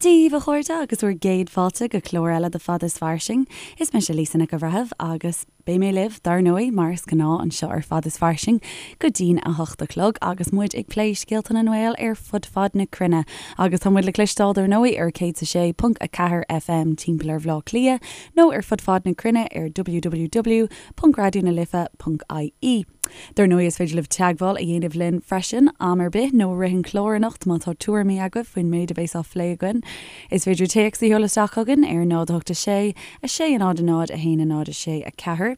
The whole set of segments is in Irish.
Dia dhaoibh a chairde agus bhur gcéad fáilte go clár eile de Fada is Fairsing. Is mise Lisa Nic an Bhreithimh agus beidh mé libh, dar ndóigh, mar is gnáth anseo ar Fada is Fairsing go dtí'n 8 a chlog agus muid ag plé scéalta na nGael ar fud fad na cruinne. Agus tá muid le cloisteáil dar ndóigh ar 106.4 FM timpeall ar Bhaile Átha Cliath nó ar fud fad na cruinne ar www.raidionalife.ie. Dar ndóigh is féidir libh teagmháil a dhéanamh linn freisin, am ar bith nó i rith an chláir anocht má tá tuairimí agaibh faoin méid a bheas á phlé againn. Is féidir téacs a sheoladh isteach chugainn ar 0 8 6 6 0 0 1 0 6 4,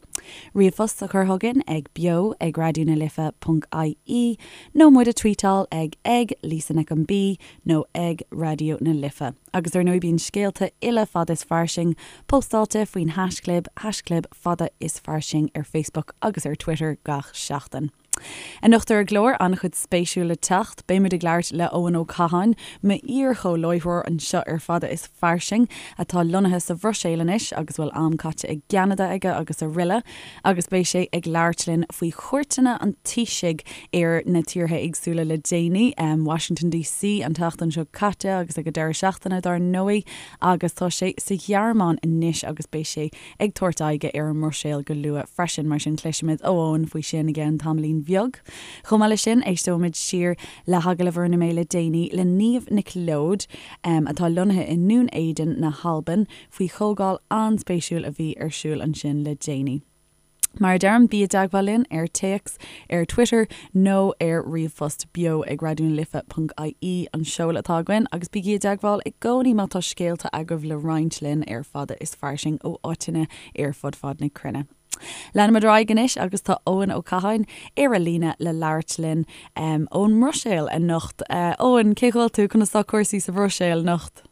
ríomhphost a chur chugainn ag beo ag raidionalife.ie nó muid a tweetáil ag ag Lisa Nic an B nó ag Raidió na Life. Agus ar ndóigh bíonn scéalta uile Fada is Fairsing postáilte faoin haischlib, haischlib Fada is Fairsing ar Facebook agus ar Twitter gach seachtain. Anocht ar an gclár, an-chuid spéisiúil le teacht. Beimid ag labhairt le Eoin Ó Catháin, m'iar-chomhláithreoir anseo ar Fada is Fairsing, atá lonnaithe sa Bhruiséil anois agus a bhfuil am caite i gCeanada aige agus aroile. Agus beidh sé ag labhairt linn faoi chuairteanna an Taoisigh ar na tíortha éagsúla le déanaí, Washington DC an tseachtain seo caite agus ag an deireadh seachtaine dár ndóigh, agus tá sé sa Ghearmáin anois agus beidh sé ag tabhairt aghaidhe ar an mBruiséil go luath freisin, mar sin cloisfimid ó Eoin faoi sin i gceann tamaillín bheag. Chomh maith leis sin, éisteoimid siar le hagallamh a rinne mé le déanaí le Niamh Nic Leoid, atá lonnaithe i nDún Éideann na hAlban, faoi chomhdháil an-spéisiúil a bhí ar siúl ansin le déanaí. Mar a deirim, bí i dteagmháil linn ar téacs, ar Twitter nó ar ríomhphost, beo ag raidionalife.ie an seoladh atá againn, agus bígí i dteagmháil i gcónaí má tá scéalta agaibh le roinnt linn ar Fada is Fairsing ó áiteanna ar fud fad na cruinne. Leanfaimid ar aghaidh anois agus tá Eoin Ó Catháin ar an líne le labhairt linn ón mBruiséil anocht. Eoin, cén chaoi a bhfuil tú? Conas tá cúrsaí sa Bhruiséil anocht?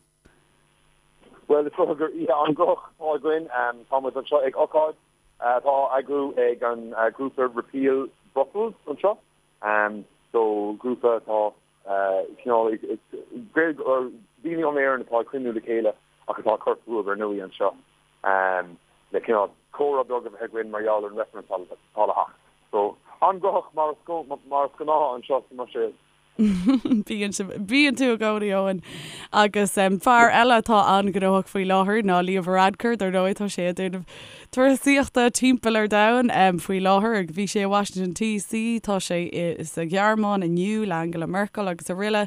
Bhuel, is dócha gur oíche an-ghnóthach atá againn. Tá muid anseo ag ocáid atá á eagrú ag an grúpa Repeal Brussels anseo. So, grúpa atá cineál ag daoine ón Éirinn atá ag cruinniú le chéile ach atá ag cur fúthu ar ndóigh anseo le cineál comhrá beag a bheith againn mar gheall ar an reifreann atá le theacht. So, an-ghnóthach mar is gnáth anseo sa mBruiséil. Bíonn sibh, bíonn tú i gcónaí, Eoin. Agus fear eile atá an-ghnóthach faoi láthair ná Leo Varadkar, dar ndóigh, tá sé ag déanamh turasaíochta timpeall ar domhan faoi láthair. Bhí sé i Washington DC, tá sé sa Ghearmáin inniu le Angela Merkel agus aroile.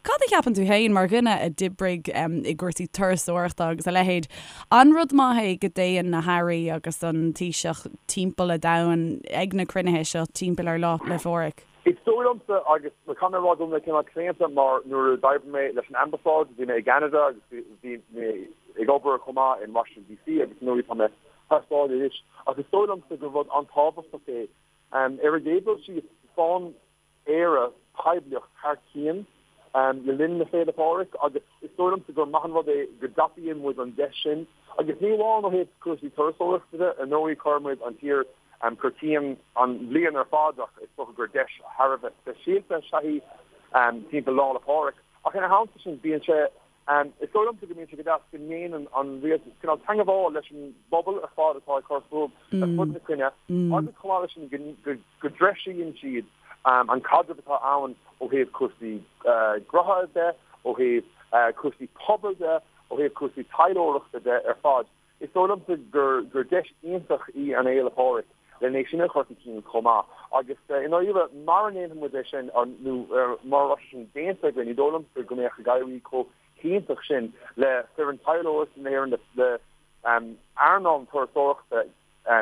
Cad a cheapann tú féin, mar dhuine a d'oibrigh i gcúrsaí turasóireachta agus a leithéid, an rud maith é go dtéann na hairí agus an Taoiseach timpeall an domhain ag na cruinnithe seo timpeall ar Lá 'le Phádraig? Is dóigh liomsa, agus caithfidh mé a rá go bhfuil mé cineál claonta mar nuair a d'oibrigh mé leis an Ambasáid, bhí mé i gCeanada agus bhí mé ag obair chomh maith in Washington DC agus ar ndóigh tá mé thar sáile anois, ach is dóigh liomsa gur rud an-tábhachtach é. Ar an gcéad dul síos, faigheann Éire poiblíocht thar cionn le linn na Féile Pádraig agus is dóigh liomsa gur maith an rud é go dtapaíonn muid an deis sin agus ní amháin ó thaobh cúrsaí turasóireachta de, ar ndóigh cuireann muid an tír chun cinn an bhliain ar fad ach is dócha gur deis thar a bheith speisialta is ea í timpeall Lá 'le Pádraig. Ach ina theannta sin bíonn sé, is dóigh liomsa go mbíonn sé go deas go ndéanann an rialtas cineál teangabháil leis an bpobal ar fad atá ag cur fúthu ar fud na cruinne agus chomh maith leis sin go dtreisíonn siad an caidreamh atá ann ó thaobh cúrsaí gnótha de, ó thaobh cúrsaí pobail de, ó thaobh cúrsaí taidhleoireachta de ar fad. Is dóigh liomsa gur deis iontach í an Fhéile Pádraig len é sin a chur chun cinn chomh maith. Agus i ndáiríre, mara ndéanfaidh muid é sin, nó mara raibh sé sin déanta againn, ní dóigh liomsa go mbeadh ag éirí chomh hiontach sin le foireann taidhleoireachta na hÉireann, le earnáil na turasóireachta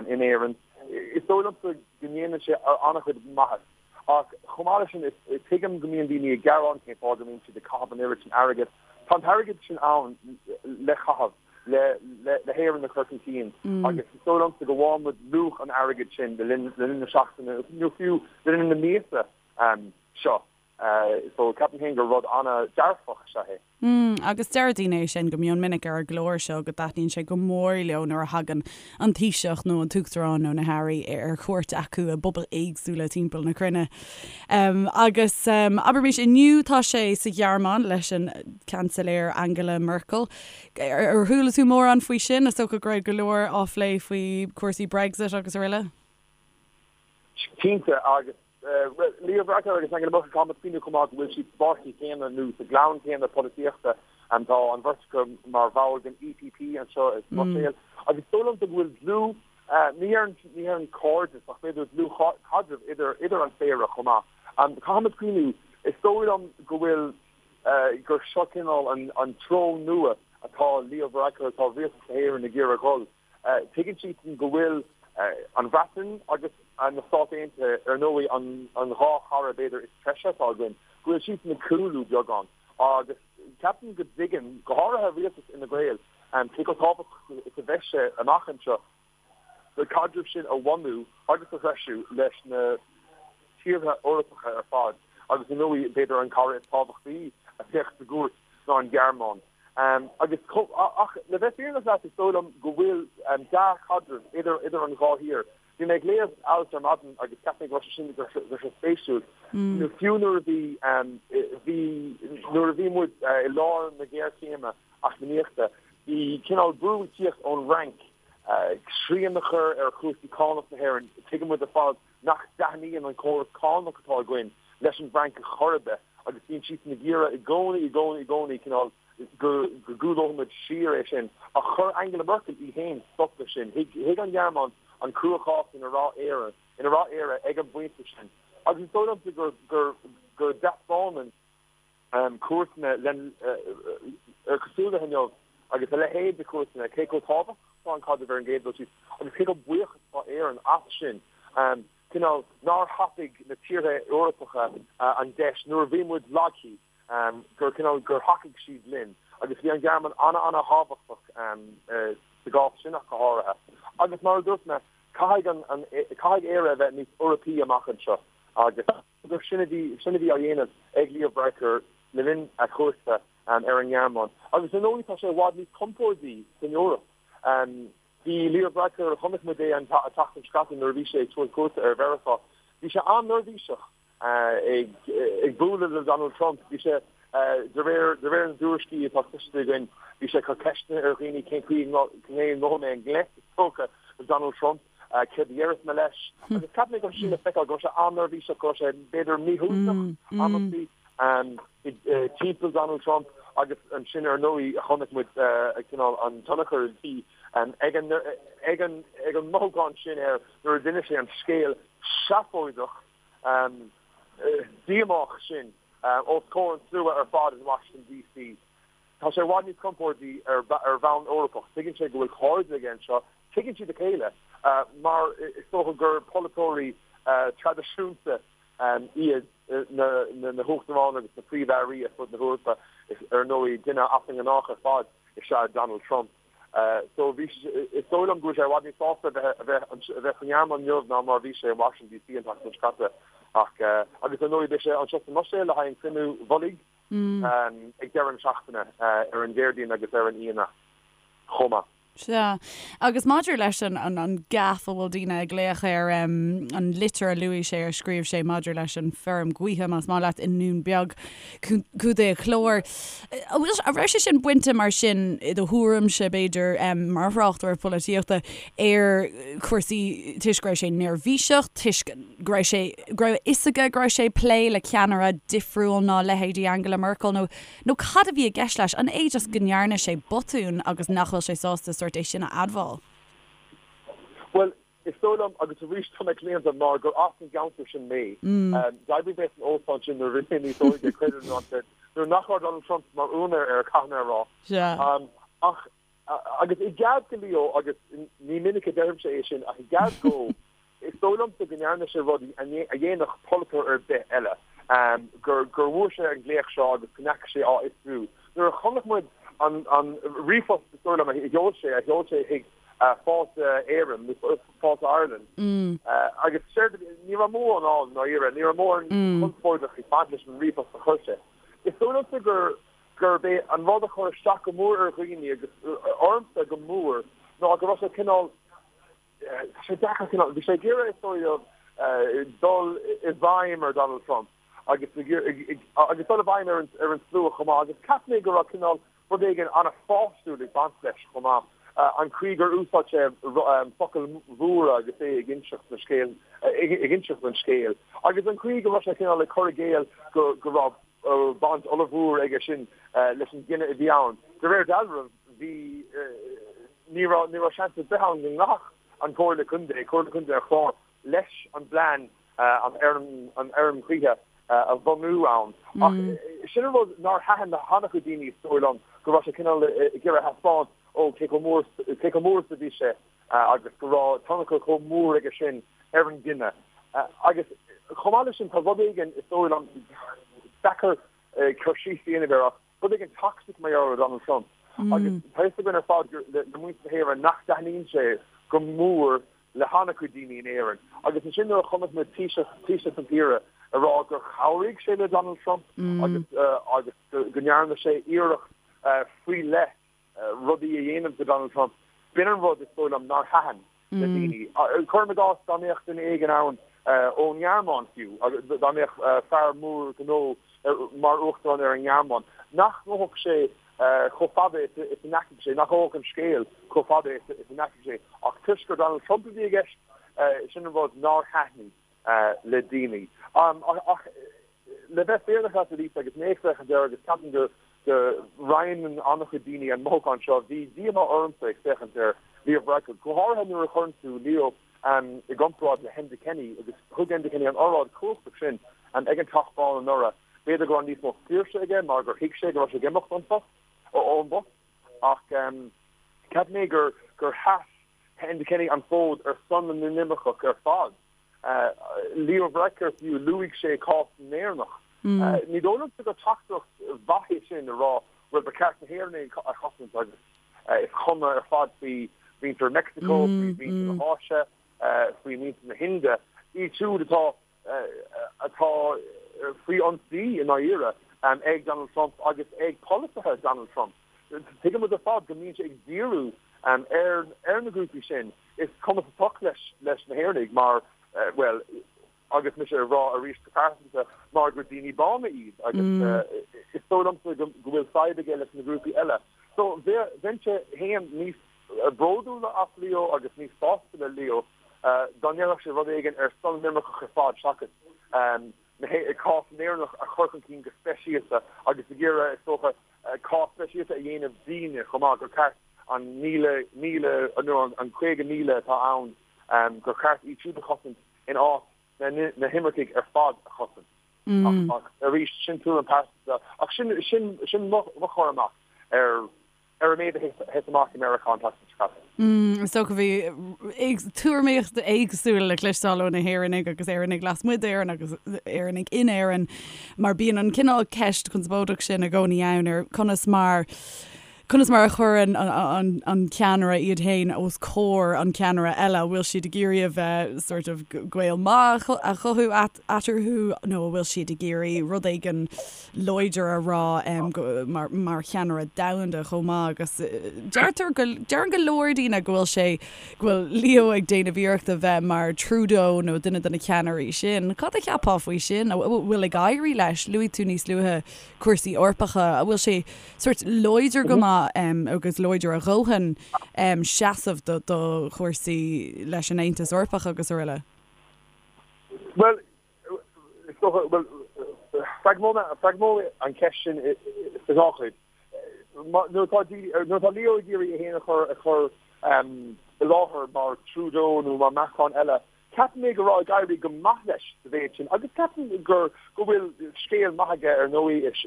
in Éirinn. Is dóigh liomsa go ndéanann sé an-chuid maitheas. Ach chomh maith leis sin, tuigim go mbíonn daoine ag gearán cén fáth go mbíonn siad ag caitheamh an oiread sin airgid. Tá an t-airgead sin ann le caitheamh, le hÉirinn a chur chun cinn agus is dóigh liomsa go bhfaigheann muid luach an airgid sin le linn na seachtaine nó fiú le linn na míosa seo. So ceapaim féin gur rud an-dearfach is ea é. Mm, agus deir daoine é sin go mion minic ar an gclár seo, go dtaitníonn sé go mór leo nuair a thagann an Taoiseach nó an tUachtarán nó na hairí ar chuairt acu i bpobail éagsúla timpeall na cruinne. Agus abraimis inniu tá sé sa Ghearmáin leis an Seansailéir Angela Merkel. Ar chuala tú mórán faoi sin? Is dócha go raibh go leor á phlé faoi chúrsaí Brexit agus aroile? Cinnte, agus Leo Varadkar agus Angela Merkel, caithfidh muid cuimhniú chomh maith go bhfuil siad sa bpáirtí céanna nó sa gclann céanna polaitíochta. Tá an bheirt acu mar bhall den EPP anseo sa mBruiséil agus is dóigh liomsa go bhfuil dlúth, ní déarfainn cairdeas ach b'fhéidir dlúthchaidreamh idir an phéire chomh maith. Caithfimid cuimhniú, is dóigh liom go bhfuil, gur seo cineál an treo nua atá Leo Varadkar, atá rialtas na hÉireann ag iarraidh dhul. Tuigeann siadsan go bhfuil an Bhreatain agus na Stáit Aontaithe, ar ndóigh, an dhá chara b'fhéidir is treise atá againn, go bhfuil siadsan ag cúlú beagán agus ceapaim go dtuigeann, go háirithe rialtas Fhine Gael, cé chomh tábhachtach is a bheidh sé amach anseo na caidrimh sin a bhunú agus a threisiú leis na tíortha Eorpacha ar fad agus, ar ndóigh, b'fhéidir an cara is tábhachtaí a bheadh sa gcuairt ná an Ghearmáin. Agus, ach le bheith fírinneach leat, is dóigh liom go bhfuil dea-chaidreamh idir idir an dhá thír. Bhí mé ag léamh alt ar maidin agus cheap mé go raibh sé sin go raibh sé spéisiúil. Nó fiú nuair a bhí bhí nuair a bhí muid i lár na géarchéime eacnamaíochta, bhí cineál brú ag tíocht ón bhFrainc srian a chur ar chúrsaí cánach na hÉireann. Tuigeann muid ar fad nach dtaitníonn an córas cánach atá againn leis an bhFrainc ar chor ar bith agus bíonn siadsan ag iarraidh i gcónaí, i gcónaí, i gcónaí cineál go gcúlóidh muid siar é sin. Ach chuir Angela Merkel í féin stop leis sin. Thuig an Ghearmáin an cruachás ina raibh Éire, ina raibh Éire ag an bpointe sin. Agus is dóigh liomsa gur, gur, go dtaispeánann cuairteanna len, ar cosúil le inniu agus a leithéid de chuairteanna, cé chomh tábhachtach atá an caidreamh ar an gcéad dul síos agus cé chomh buíoch is atá Éirinn as sin. Cineál nár thapaigh na tíortha Eorpacha an deis nuair a bhí muid lagtha, gur cineál gur thacaigh siad linn agus bhí an Ghearmáin ana-ana-thábhachtach sa gcás sin ach go háirithe. Agus mar a dúirt mé, caithfidh an, caithfidh Éire a bheith níos Eorpaí amach anseo agus. gur sin a bhí sin a bhí á dhéanamh ag Leo Varadkar le linn a chuairte ar an nGearmáin. Agus ar ndóigh tá sé i bhfad níos compórdaí san Eoraip. Bhí Leo Varadkar, chonaic muid é an tseachtain seo caite nuair a bhí sé ag tabhairt cuairte ar Mheiriceá, bhí sé an-neirbhíseach ag bualadh le Donald Trump. Bhí sé, de réir de réir na dtuairiscí atá cloiste againn, bhí sé ag cur ceisteanna ar dhaoine cén chaoi a ngabhfaidh mé i ngleic, is dócha, le Donald Trump. Céard a dhéarfas mé leis? Agus cheap mé go raibh sé sin le feiceáil, go raibh sé an-neirbhíseach, go raibh sé b'fhéidir míshuaimhneach amantaí timpeall Donald Trump agus ansin ar ndóigh chonaic muid cineál an tionchar a bhí ag an ag an ag an mothúchán sin air nuair a d'inis sé an scéal seafóideach díomách sin os comhair an tslua ar fad in Washington DC. Tá sé i bhfad níos compórdaí ar bhonn Eorpach. Tuigeann sé go bhfuil cairde aige anseo. Tuigeann siad a chéile mar is dócha gur polaiteoirí traidisiúnta iad na huachtaráin agus na príomh-airí ar fud na hEorpa. Ar ndóigh, duine as an ngnách ar fad is ea Donald Trump. So bhí, is dóigh liom go bhfuil sé i bhfad níos sásta a bheith a bheith sa nGearmáin inniu ná mar a bhí sé in Washington DC an tseachtain seo caite. Ach, agus ar ndóigh beidh sé anseo sa mBruiséil le haghaidh an cruinniú mhullaigh. ag deireadh na seachtaine, ar an Déardaoin agus ar an Aoine chomh maith. Sea. Agus maidir leis an an gaffe a bhfuil daoine ag glaoch air, an litir a luaigh sé, a scríobh sé maidir leis an feirm gaoithe, más maith leat, i nDún Beag, Contae an Chláir, an bhfuil, an raibh sé sin bainte mar sin, i do thuairimse, b'fhéidir, mar thráchtaire polaitíochta, ar chúrsaí toisc go raibh sé neirbhíseach, toisc go raibh sé, go raibh a fhios aige go raibh sé ag plé le ceannaire difriúil ná leithéidí Angela Merkel nó, nó cad a bhí i gceist leis? An é just go ndearna sé botún agus nach bhfuil sé sásta sórt é sin a admháil? Bhuel, is dóigh liom, agus arís tá mé claonta mar gur as an gceantar sin mé, d'oibrigh mé san óstán sin nuair a bhí mé níos óige, creid é nó ná creid, nuair nach raibh Donald Trump mar úinéir air, caithfidh mé a rá. Ach Agus i gcead do Leo, agus ní minic a deirimse é sin, ach i gcead dó, is dóigh liomsa go ndearna sé rud a dhéanfadh polaiteoir ar bith eile, gur bhfuair sé an glaoch seo agus go ndeachaigh sé á fhiosrú. Nuair a chonaic muid an ríomhphost, is dóigh liom, a sheol sé, a sheol sé chuig Fáilte Éireann, nó Fáilte Ireland, agus séard, ní raibh mórán ann, ndáiríre, ní raibh mórán conspóideach ag baint leis an ríomhphost a chuir sé. Is dóigh liomsa gur. gurb é an rud a chuir isteach go mór ar dhaoine agus ormsa go mór ná go raibh sé cineál, tá sé deacair cineál, bhí sé ag iarraidh is dóigh liom dul i bhfeidhm ar Donald Trump agus agus dul i bhfeidhm ar an ar an slua chomh maith agus cheap mé go raibh cineál rud éigin an-pháistiúil ag baint leis chomh maith, an chaoi gur úsáid sé focail mhóra agus é ag inseacht na scéal, ag inseacht an scéil agus an chaoi go raibh sé cineál ag cur i gcéill go go raibh. baint ollmhór aige sin leis an gcinneadh a bhí ann. De réir dealraimh, bhí, ní raibh, ní raibh seans ar bith ann go nglacfadh an Chomhairle Contae, Comhairle Contae an Chláir, leis an bplean an fheirm ghaoithe a bhunú ann. Ach sin an rud nár thaitin le han-chuid daoine, is dóigh liom, go raibh sé cineál ag iarraidh a thaispeáint, ó, cé chomh mór, cé chomh mór is a bhí sé agus go raibh tionchar chomh mór aige sin ar an gcinneadh. Agus chomh maith leis sin, tá rud éigin, is dóigh liom, deacair cur síos a dhéanamh air ach rud éigin toxic mar gheall ar Donald Trump. Agus tá fhios againn ar fad le muintir na hÉireann nach dtaitníonn sé go mór le han-chuid daoine in Éirinn. Agus ansin nuair a chonaic muid Taoiseach, Taoiseach na tíre ag rá gur chabhraigh sé le Donald Trump agus agus go ndearna sé iarracht faoi leith rudaí a dhéanamh do Donald Trump, b'in an rud is dóigh liom nár thaitin le daoine. Cuirim i gcás dá mbeadh duine éigin ann ón nGearmáin fiú, dá mbeadh fear mór gnó mar uachtarán ar an nGearmáin, nach ngabhfadh sé chomh fada is a ndeachaigh sé, nach ngabhfadh an scéal chomh fada is a ndeachaigh sé. Ach toisc gur Donald Trump a bhí i gceist, sin an rud nár thaitnigh le daoine. Ach le bheith fírinneach leat, a Lisa, agus mé ag féachaint air agus ceapaim go go roinneann an-chuid daoine an mothúchán seo, bhí díomá ormsa ag féachaint ar Leo Varadkar, go háirithe nuair a chuireann tú Leo i gcomparáid le hEnda Kenny, agus thug Enda Kenny an oráid chumhachtach sin ag an Teach Bán anuraidh. B'fhéidir go raibh níos mó saoirse aige mar gur thuig sé go raibh sé ag imeacht ón phost, ón bpost, ach cheap mé gur gur sheas Enda Kenny an fód ar son na n-inimirceach ar fad. Leo Varadkar fiú, luaigh sé cás na nÉireannach. Ní dóigh liomsa gur teachtaireacht mhaith é sin a rá bhuel ba cheart na hÉireannaigh a chosaint agus is cuma ar fad faoi mhuintir Meicsiceo, faoi mhuintir na hÁise, faoi mhuintir na hIndia, iad siúd atá atá faoi ionsaí i ndáiríre ag Donald Trump agus ag polasaithe Donald Trump. Tuigeann muid ar fad go mbíonn sé ag díriú ar ar na grúpaí sin. Is cuma sa tsioc leis leis na hÉireannaigh mar, bhuel, agus mise ag rá arís go pearsanta, mar gur daoine bána iad agus is dóigh liomsa go bhfuil fadhb aige leis na grúpaí eile. So bheinnse féin níos bródúla as Leo agus níos sásta le Leo dá ndéarfadh sé rud éigin ar son na n-imirceach ar fad seachas cás na nÉireannach a chur chun cinn go speisialta agus ag iarraidh, is dócha, cás speisialta a dhéanamh dínne chomh maith, gur ceart an 1,000, nó an 50,000 atá ann, gur cheart iad siúd a chosaint in áit na himircigh ar fad a chosaint. Ach arís, sin tuairim pearsanta. Ach sin, sin mo chur amach ar ar an méid a thit amach i Meiriceá an tseachtain seo caite. Is dócha bhí tuairimíocht éagsúil le cloisteáil ó na hÉireannaigh agus Éireannaigh lasmuigh d'Éirinn agus Éireannaigh in Éirinn mar bíonn an cineál ceist conspóideach sin i gcónaí ann ar conas mar conas mar a chuireann an an ceannaire iad féin os comhair an ceannaire eile, an bhfuil siad ag iarraidh a bheith sort of gaol maith a chothú eatarthu nó an bhfuil siad ag iarraidh rud éigin láidir a rá mar mar cheannaire domhanda chomh maith agus deirtear go deireann go leor daoine go bhfuil sé go bhfuil Leo ag déanamh iarracht a bheith mar Trudeau nó duine de na ceannairí sin. Cad a cheapfá faoi sin? An bhfuil ag éirí leis? Luaigh tú níos luaithe cúrsaí Eorpacha. An bhfuil sé sort láidir go maith agus láidir a dhóthain seasamh do do chúrsaí leis an Aontas Eorpach agus araile? Bhuel, Is dócha, bhuel, freagróidh mé an cheist sin sa dhá chuid. Nuair atá nuair atá Leo ag iarraidh é féin a chur a chur i láthair mar Trudeau nó mar Macron eile, ceapaim mé go raibh ag éirí go maith leis sa mhéid sin agus ceapaim gur go bhfuil scéal maith aige ar ndóigh is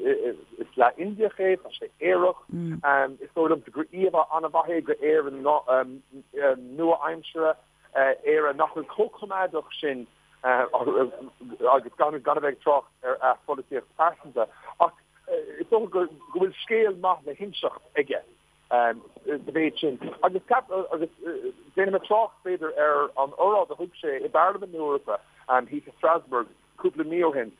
is leath Indiach é, tá sé aerach, is dóigh liomsa gur íomhá an-mhaith é d'Éire nua-aimseartha, Éire nach bhfuil chomh coimeádach sin agus gan a bheith ag trácht ar a pholaitíocht phearsanta, ach is dócha go bhfuil scéal maith le hinseacht aige sa mhéid sin. Agus agus déanfaidh mé trácht, b'fhéidir, ar an óráid a thug sé i bParlaimint na hEorpa thíos i Strasbourg cúpla mí ó shin.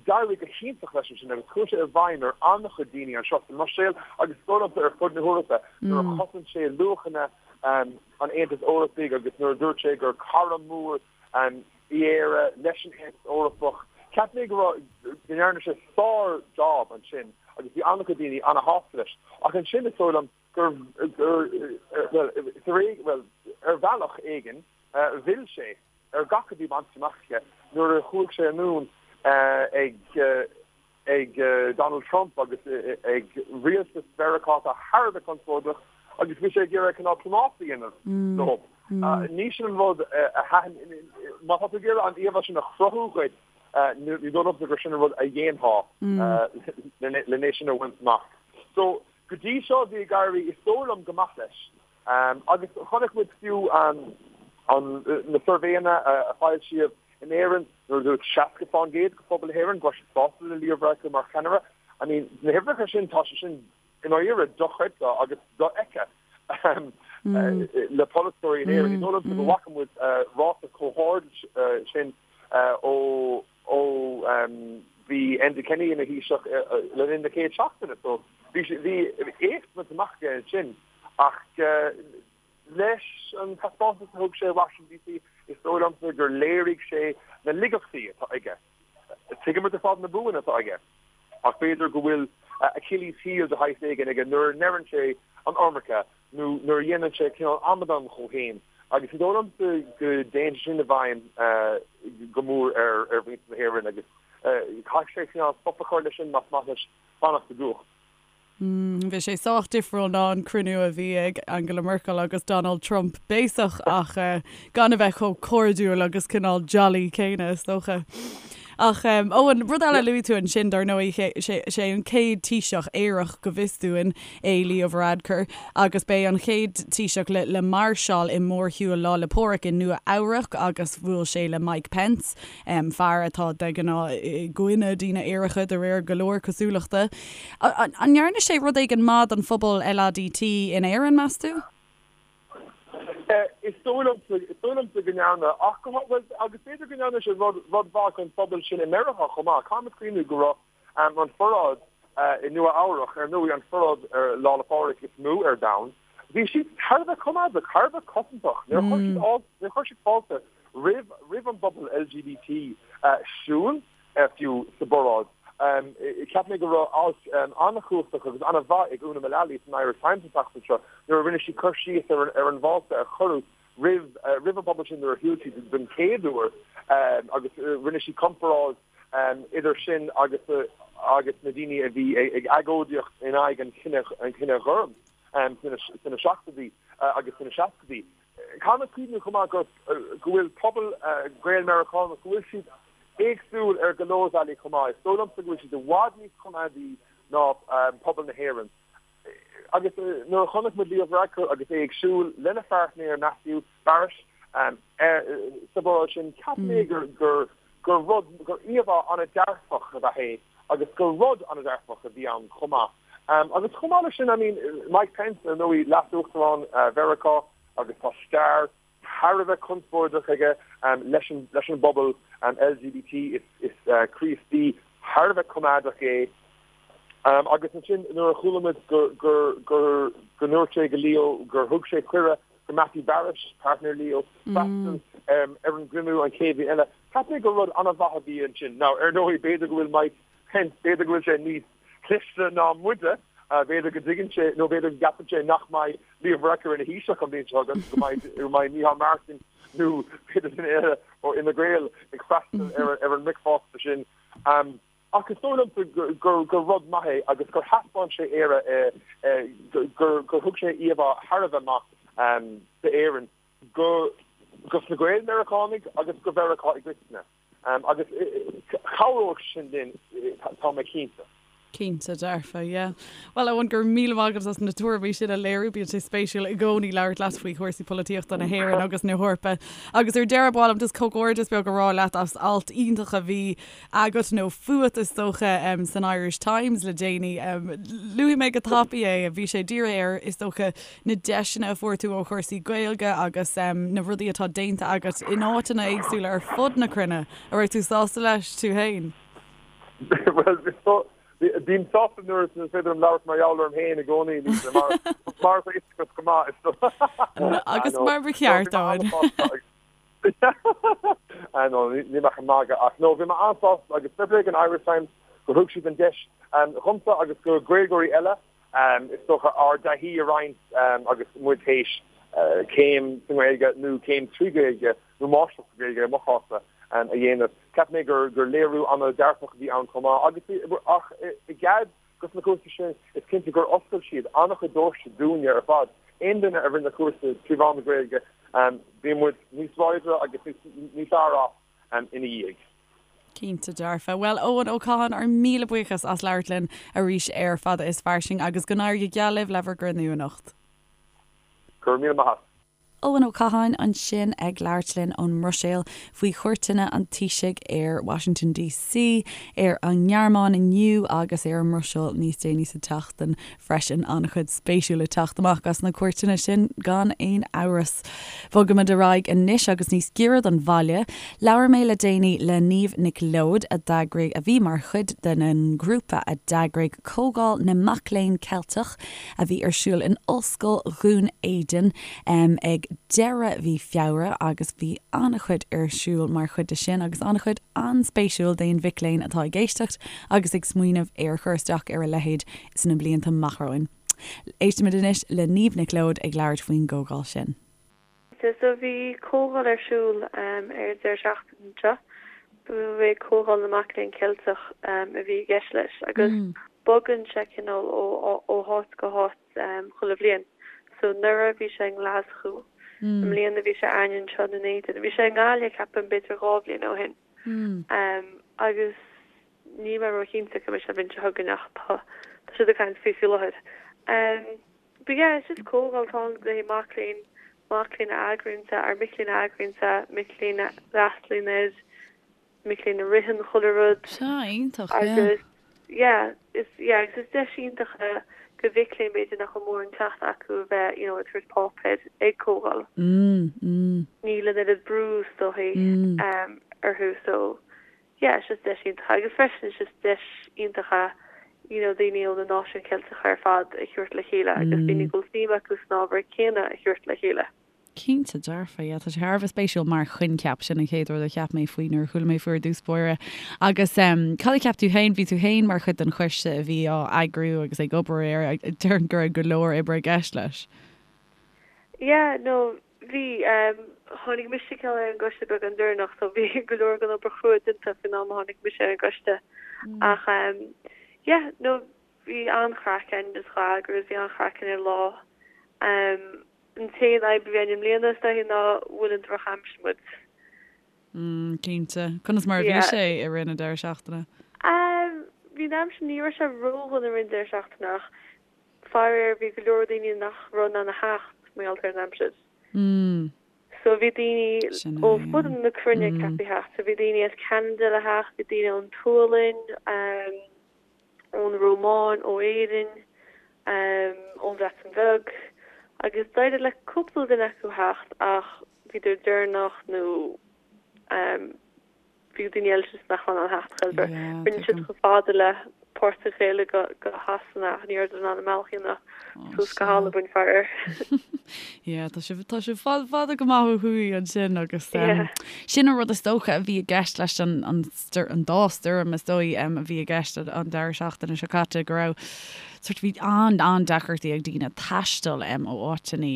D'éirigh go hiontach leis ansin agus chuaigh sé i bhfeidhm ar an-chuid daoine anseo sa mBruiséil agus is dóigh liomsa ar fud na hEorpa nuair a chosain sé luachanna an Aontais Eorpaigh agus nuair a dúirt sé gur cara mór í Éire leis an Aontas Eorpach. Cheap mé go raibh, go ndearna sé sár-job ansin agus bhí an-chuid daoine an-shásta leis. Ach ansin is dóigh liom gur, gur, bhuel, tar éis, bhuel, ar bhealach éigin, mhill sé ar gach a bhí bainte amach aige nuair a chuaigh sé anonn ag. ag Donald Trump agus ag rialtas Mheiriceá atá thar a bheith conspóideach agus bhí sé ag iarraidh cineál plámás a dhéanamh leo. Ní sin an rud a thaitin, má tá tú ag iarraidh an íomhá sin a chruthú dhuit, ní dóigh liomsa gur sin an rud a dhéanfá lena sin a bhaint amach. So, go dtí seo bhí ag éirí, is dóigh liom, go maith leis. Agus chonaic muid fiú na suirbhéanna a foilsíodh in Éirinn nuair a dúirt 60% de phobal na hÉireann go raibh siad sásta le Leo Varadkar mar cheannaire. I mean, na huimhreacha sin, tá sé sin i ndáiríre dochreidte agus dofheicthe le polaiteoirí in Éirinn. Ní dóigh liomsa go bhfaca muid ráta chomh hard sin ó ó bhí Enda Kenny ina Thaoiseach le linn na chéad seachtaine. So bhí bhí éacht bainte amach aige ansin ach leis an taispeántas a thug sé i Washington DC is dóigh liomsa gur léirigh sé na laigeachtaí atá aige. Tuigimid ar fad na buanna atá aige ach b'fhéidir go bhfuil Achilles heel de shaghas éigin aige nuair a ndeireann sé an iomarca nó nuair a dhéanann sé cineál amadán dhó féin agus is dóigh liomsa go dtéann sé sin i bhfeidhm go mór ar mhuintir na hÉireann agus caithfidh sé cineál stop a chur leis sin más maith leis fanacht i gcumhacht. Bhí sé sách difriúil ná an cruinniú a bhí ag Angela Merkel agus Donald Trump béasach ach gan a bheith chomh cairdiúil agus cineál jolly céanna is dócha. Ach Eoin, rud eile a luaigh tú ansin dar ndóigh, sé an chéad Taoiseach aerach go bhfios dúinn é Leo Varadkar agus b'é an chéad Taoiseach le le máirseáil i mórshiúl Lá 'le Pádraig i Nua Eabhrac agus bhuail sé le Mike Pence, fear atá de ghnáth i gcoinne daoine aeracha de réir go leor cosúlachta. An ndearna sé rud éigin maith don phobal LADT in Éirinn, meas tú? Is dóigh liomsa, is dóigh liomsa go ndearna, ach go, bhuel, agus b'fhéidir go ndearna sé rud, rud mhaith don phobal sin i Meiriceá chomh maith. Caithfimid cuimhniú go raibh an pharáid i Nua Eabhrach, ar ndóigh, an pharáid ar Lá 'le Pádraig is mó ar domhan, bhí siad thar a bheith coimeádach, thar a bheith cosantach. Níor chuir siad, níor chuir siad fáilte roimh, roimh an bpobal LGBT siúl. fiú sa bparáid. Cheap mé go raibh alt an-chumhachtach agus an-mhaith ag Úna Mullally san Irish Times an tseachtain seo nuair a rinne sí cur síos ar an bhfáilte a cuireadh roimh roimh an bpobal sin nuair a shiúil siad den chéad uair agus rinne sí comparáid idir sin agus agus na daoine a bhí ag agóidíocht in aghaidh an chine an chine ghoirm sna seachtóidí agus sna seascaidí. Caithfimid cuimhniú chomh maith go go bhfuil pobal Gael-Meiriceánach, go bhfuil siad éagsúil ar go leor bealaí chomh maith. Is dóigh liomsa go bhfuil siad i bhfad níos coimeádaí ná pobal na hÉireann. Agus nuair a chonaic muid Leo Varadkar agus é ag siúl lena pháirtnéir Matthew Barish sa bparáid sin, cheap mé gur gur gur rud, gur íomhá an-dearfach ab ea é agus gur rud an-dearfach a bhí ann chomh maith. Agus chomh maith leis sin, I mean, Mike Pence, ar ndóigh, leas-uachtarán Mheiriceá agus tá stair thar a bheith conspóideach aige leis an leis an bpobal LGBT, is Críostaí thar a bheith coimeádach é. Agus ansin nuair a chuala muid gur gur gur go ndúirt sé go Leo gur thug sé cuireadh go Matthew Barish, partner Leo, freastal ar an gcruinniú an chéad bhliain eile, cheap mé gur rud an-mhaith a bhí ansin. Now, ar ndóigh, b'fhéidir go bhfuil Mike Pence, b'fhéidir go bhfuil sé níos cliste ná muide, b'fhéidir go dtuigeann sé, nó b'fhéidir go gceapann sé nach mbeidh Leo Varadkar ina Thaoiseach an bhliain seo chugainn, go mbeidh, go mbeidh Micheál Martin nó b'fhéidir duine eile ó Fhine Gael ag freastal ar, ar an mbricfeasta sin. Ach is dóigh liomsa gur, gur rud maith é agus gur thaispeáin sé Éire, gur, gur thug sé íomhá thar a bheith maith d'Éirinn go, dos na Gael-Meiriceánaigh agus go Mheiriceá i gcoitinne. Agus cabhróidh sin linn, tá mé cinnte. Cinnte dearfa, yeah. Bhuel, Eoin, go raibh míle maith agat as na tuairimí sin a léiriú. Bíonn sé spéisiúil i gcónaí labhairt leat faoi chúrsaí polaitíochta na hÉireann agus na hEorpa. Agus ar deireadh, ba mhaith liom just comhghairdeas beag a rá leat as alt iontach a bhí agat, nó fút is dócha, san Irish Times le déanaí. Luafaidh mé go tapaidh é. Bhí sé dírithe ar, is dócha, na deiseanna a fuair tú ó chúrsaí Gaeilge agus na rudaí atá déanta agat in áiteanna éagsúla ar fud na cruinne. An raibh tú sásta leis tú féin? Bhuel, bím sásta nuair is féidir liom labhairt mar gheall orm féin i gcónaí, Lisa, mar mar atá fhios agat go maith. Is Agus mar ba cheart, Eoin. No, níl mé ach ag magadh ach no, bhí mé an-sásta agus fair play don Irish Times gur thug siad an deis dhomsa agus go Gaeilgeoirí eile Is dócha ár dtaithí a roinnt agus muid théis céim sa nGaeilge nó céim trí Ghaeilge nó máistreacht sa Ghaeilge i mo chás-sa. a dhéanamh. Cheap mé gur léiriú an-dearfach a bhí ann chomh maith agus ach i gcead dos na cúrsaí sin is cinnte gur oscail siad an-chuid doirse dúinne ar fad. Aon duine a rinne cúrsa trí mheán na Gaeilge bhí muid níos láidre agus níos fearr as ina dhiaidh. Cinnte dearfa. Bhuel, Eoin Ó Catháin, ár míle buíochas as labhairt linn arís ar Fada is Fairsing agus go n-éirí go geal libh le bhur gcruinniú anocht. Go raibh míle maith a't. Eoin Ó Catháin ansin ag labhairt linn ón mBruiséil faoi chuairteanna an Taoisigh ar Washington DC, ar an nGearmáin inniu agus ar an mBruiséil níos déanaí sa tseachtain freisin. An-chuid spéisiúil ag teacht amach as na cuairteanna sin gan aon amhras. Bogaimid ar aghaidh anois agus níos giorra don bhaile. Labhair mé le déanaí le Niamh Nic Leoid a d'eagraigh, a bhí mar chuid den ngrúpa a d'eagraigh Comhdháil na Mac Léinn Ceilteach a bhí ar siúl in Ollscoil Dhún Éideann ag deireadh mhí Feabhra agus bhí an-chuid ar siúl mar chuid de sin agus an-chuid an-spéisiúil d'aon mhic léinn atá ag éisteacht agus ag smaoineamh ar chur isteach ar a leithéid sna blianta amach romhainn. Éistimid anois le Niamh Nic Leoid ag labhairt faoin gcomhdháil sin. So bhí comhdháil ar siúl ar an deireadh seachtaine seo. Ba é Comhdháil na Mac Léinn Ceilteach a bhí i gceist leis agus bogann sé cineál ó háit go háit chuile bhliain. So anuraidh bhí sé i nGlaschú, i mbliana bhí sé againne anseo i nDún Éideann. Bhí sé i nGaillimh ceapaim b'fhéidir 2 bhliain ó shin. Agus níl mé róchinnte cá mbeidh sé an bhliain seo chugainn ach tá siad ag caint faoi faoi láthair. But yeah, it's just comhdháil atá ann le haghaidh mac léinn, mac léinn a eagraíonn é, or mic léinn a eagraíonn é, mic léinn a fhreastalaíonn air, mic léinn a ritheann chuile rud. Sea, iontach, yeah. Agus yeah, is yeah, agus is deis iontach é do mhic léinn b'fhéidir nach bhfuil mórán cleachtadh acu a bheith, you know, ag tabhairt páipéir ag comhdháil. Mm, mm. Níl an oiread brú is dóichí mm. orthu so Yeah, it's just deis iontach agus freisin it's just deis iontach é you know daoine ó na náisiúin Cheilteacha ar fad a thabhairt le chéile agus daoine go bhfuil suim acu san ábhar céanna a thabhairt le chéile. Cinnte dearfa, yeah, tá sé thar a bheith spéisiúil mar choincheap, sin an chéad rud a cheap mé faoi nuair a chuala mé faoi ar dtús báire. Agus em cad a cheap tú féin, bhí tú féin mar chuid den choiste a bhí á eagrú agus ag obair air, déarfainn go raibh go leor oibre i gceist leis. Yeah, no, Bhí. Tháinig mise cineál ar an gcoiste beagán deireanach so bhí go leor den obair chrua déanta faoin am a tháinig mise ar an gcoiste. Ach yeah, no, bhí an-chraic againn just dhá eagrú agus bhí an-chraic againn ar an lá. An t-aon fhadhb a bhí againn i mbliana is dóichí ná bhuail an drochaimsir muid. Mm, cinnte. Conas mar a bhí sé i rith na deireadh seachtaine? Bhí an aimsir, ní raibh sé ródhona i rith an deireadh seachtaine ach Faraor bhí go leor daoine nach raibh in ann a theacht mar gheall ar an aimsir. So bhí daoine ó fud na cruinne ceaptha a theacht. So bhí daoine as Ceanada le theacht, bhí daoine ón tSualainn, ón Rómáin, ó Éirinn, ón Bhreatain Bheag agus d'éirigh le cúpla duine acu theacht ach bhíodar deireanach nó Bhí daoine eile just nach raibh in ann theacht chor ar bith. Rinne siad chomh fada le Port an Ghaeilge go Shasana ach ní rabhadar in ann an bealach a dhéanamh suas go hAlbain, faraor. Yeah, tá sibh, tá sibh fada, fada go maith ó thuaidh ansin agus sin an rud is dócha a bhí i gceist leis an, an, an dá stoirm is dóigh a bhí i gceist an deireadh seachtaine seo caite go raibh sort bhí an, an-deacrachtaí ag daoine taisteal ó áiteanna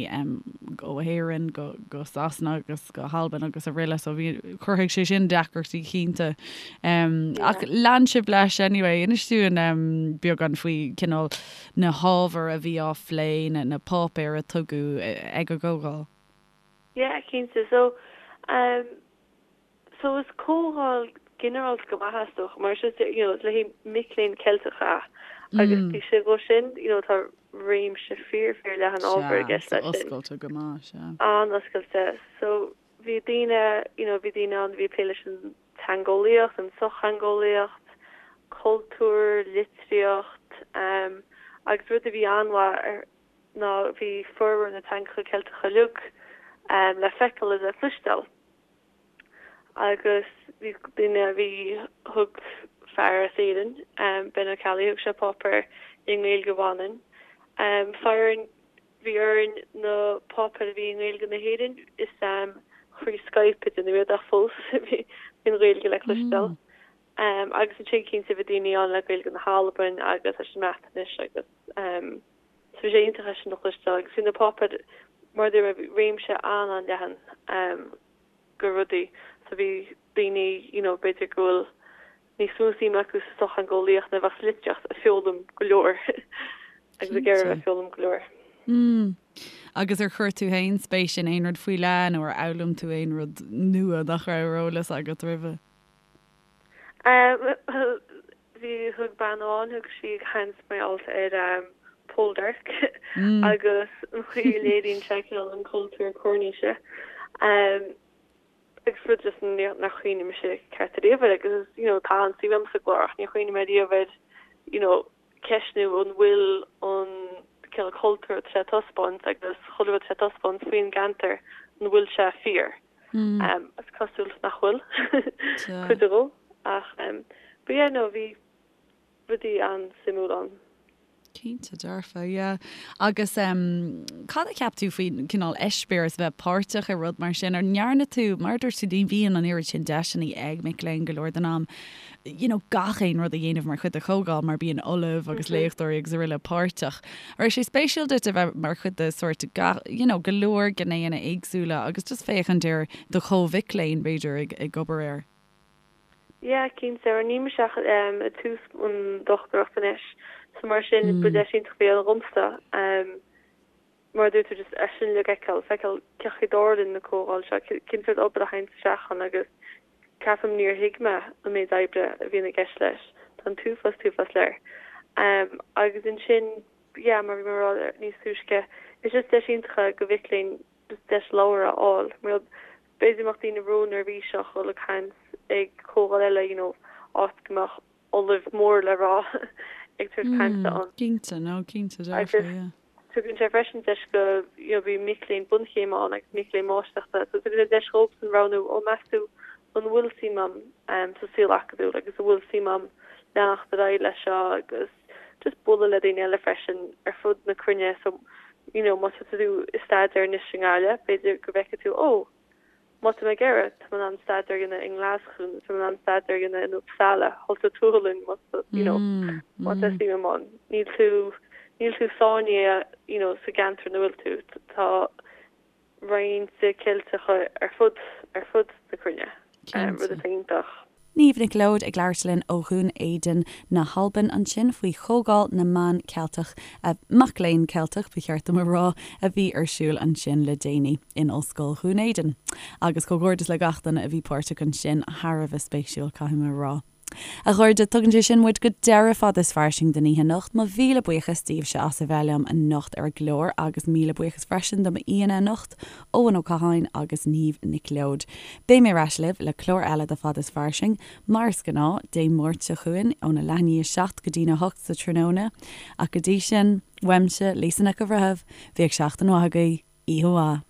ó Éirinn go, go Sasana agus go hAlbain agus araile so bhí, chruthaigh sé sin deacrachtaí cinnte. Ach lean sibh leis anyway, inis dúinn beagán faoi cineál na hábhair a bhí á phlé, na, na páipéir a tugadh ag an gcomhdháil. Yeah, cinnte. So, um, so is comhdháil ginearálta go maith é is dócha mar is just, you know, is le haghaidh mic léinn Ceilteacha é agus taobh istigh dhó sin, you know, tá réimse fíor fíor leathan ábhar i gceist leis sin. Oscailte go maith, sea. An-oscailte. So bhí daoine, you know, bhí daoine ann a bhí ag plé leis an teangeolaíocht, an tsochtheangeolaíocht, cultúr, litríocht, um, agus rud a bhí an-mhaith ar ná bhí formhór na teangacha Ceilteacha uilig um, le feiceáil is le cloisteáil. Agus bhí duine a bhí, thug fear as Éirinn, Ben Ó Ceallaigh, thug sé páipéar i nGaeilge Mhanann. Faraor, bhí orainn na páipéir a bhí i nGaeilge na hÉireann, is thrí Skype a deineadh iad ach fós bhí an Ghaeilge le cloisteáil. Agus ansin cinnte bhí daoine ann le Gaeilge na hAlbain agus leis an mBreatnais agus so bhí sé iontach é sin a chloisteáil agus bhí na páipéir mar a dúirt mé, bhí réimse an-an-leathan. de rudaí. So bhí. daoine you know b'fhéidir go bhfuil níos mó suim acu sa sochtheangeolaíocht ná a bheadh sa litríocht ag foghlaim go leor agus ag iarraidh a bheith ag foghlaim go leor. Mm. Agus ar chuir tú féin spéis in aon rud faoi leith nó ar fhoghlaim tú aon rud nua nach raibh ar eolas agat roimhe? Bhuel, bhí, thug bean amháin, thug sí caint mar gheall ar Poldark agus an chaoi a léiríonn sé cineál an cultúr Coirníse. Agus rud just nár chuimhnigh mise ceart ariamh air agus you know tá an-suim agam sa gclár ach níor chuimhnigh mé ariamh air you know ceistniú an bhfuil an cineál cultúr atá sé a taispeáint agus chuile rud atá sé a taispeáint faoin gceantar an bhfuil sé fíor. Is cosúil nach bhfuil cuid dhó ach but yeah no bhí rudaí an-suimiúil ann. Cinnte dearfa, yeah. Agus em cad a cheap tú faoin cineál eispéireas a bheith páirteach i rud mar sin? Ar ndearna tú, mar a dúirt tú, ní bhíonn an oiread sin deiseanna ag mic léinn go leor den am, you know, gach aon rud a dhéanamh mar chuid de chomhdháil mar bíonn ollaimh agus léachtóirí agus araile páirteach. An raibh sé spéisiúil duit a bheith mar chuid de sórt gach, you know, go leor gnéanna éagsúla agus just féachaint ar do chomh-mhic léinn b'fhéidir ag ag obair air? Yeah, cinnte. Mar níl mise ach ag tús an dochtúireacht anois, so mar sin ba deis iontach a bhí ann dhomsa. Mar a dúirt tú, just é sin uilig a fheiceáil, feiceáil cén chaoi a dtarlaíonn na comhdháil seo, cén sórt obair a théann isteach ann agus ceapaim níor thuig mé an méid oibre a bhíonn i gceist leis. Tá an t-uafás, t-uafás léir. Agus ansin, yeah, mar a bhí mé ag rá níos túisce, is just deis iontach é do mhic léinn just deis labhairt a fháil. Mar b'fhéidir go mbeadh daoine ró-neirbhíseach dhul ag caint ag comhdháil eile, you know, áit go mbeadh ollamh mór le rá ag tabhairt cainte ann. Cinnte, no, cinnte dearfa, yeah. Tugann sé freisin deis go, you know, bhí mic léinn bunchéime ann agus mic léinn máistreachta, so tugann sé deis dhóibhsean roghnú, ó meas tú an bhfuil suim a'm sa saol acadúil agus an bhfuil suim a'm leanacht ar aghaidh leis seo agus just bualadh le daoine eile freisin ar fud na cruinne so you know má tá tú ag staidéar anois i nGaillimh b'fhéidir go bhfeicfidh tú oh má tá mé ag iarraidh tá mé in ann staidéar a dhéanamh i nGlaschú nó tá mé in ann staidéar a dhéanamh in Uppsala thall sa tSualainn má tá you know má tá suim a'm ann níl tú níl tú sáinnithe you know sa gceantar ina bhfuil tú tá roinnt Ceilteacha ar fud ar fud na cruinne, rud atá iontach. Niamh Nic Leoid ag labhairt linn ó Dhún Éideann na hAlban ansin faoi Chomhdháil na mBan Ceilteach, mac léinn Ceilteach ba cheart dom a rá, a bhí ar siúl ansin le déanaí in Ollscoil Dhún Éideann. Agus comhghairdeas le gach duine a bhí páirteach ansin, thar a bheith spéisiúil, caithfidh mé a rá. A chairde, tugann sé sin muid go deireadh Fada is Fairsing don oíche anocht. Mo mhíle buíochas daoibhse as a bheith liom anocht ar an gclár agus míle buíochas freisin do m'aíonna anocht, Eoin Ó Catháin agus Niamh Nic Leoid. Beidh mé ar ais libh le clár eile de Fada is Fairsing, mar is gnáth, Dé Máirt seo chugainn óna leath i ndiaidh a 7 go dtína 8 sa tráthnóna. Ach go dtí sin, uaimse, Lisa Nic an Bhreithimh, bíodh seachtain mhaith agaibh, oíche mhaith.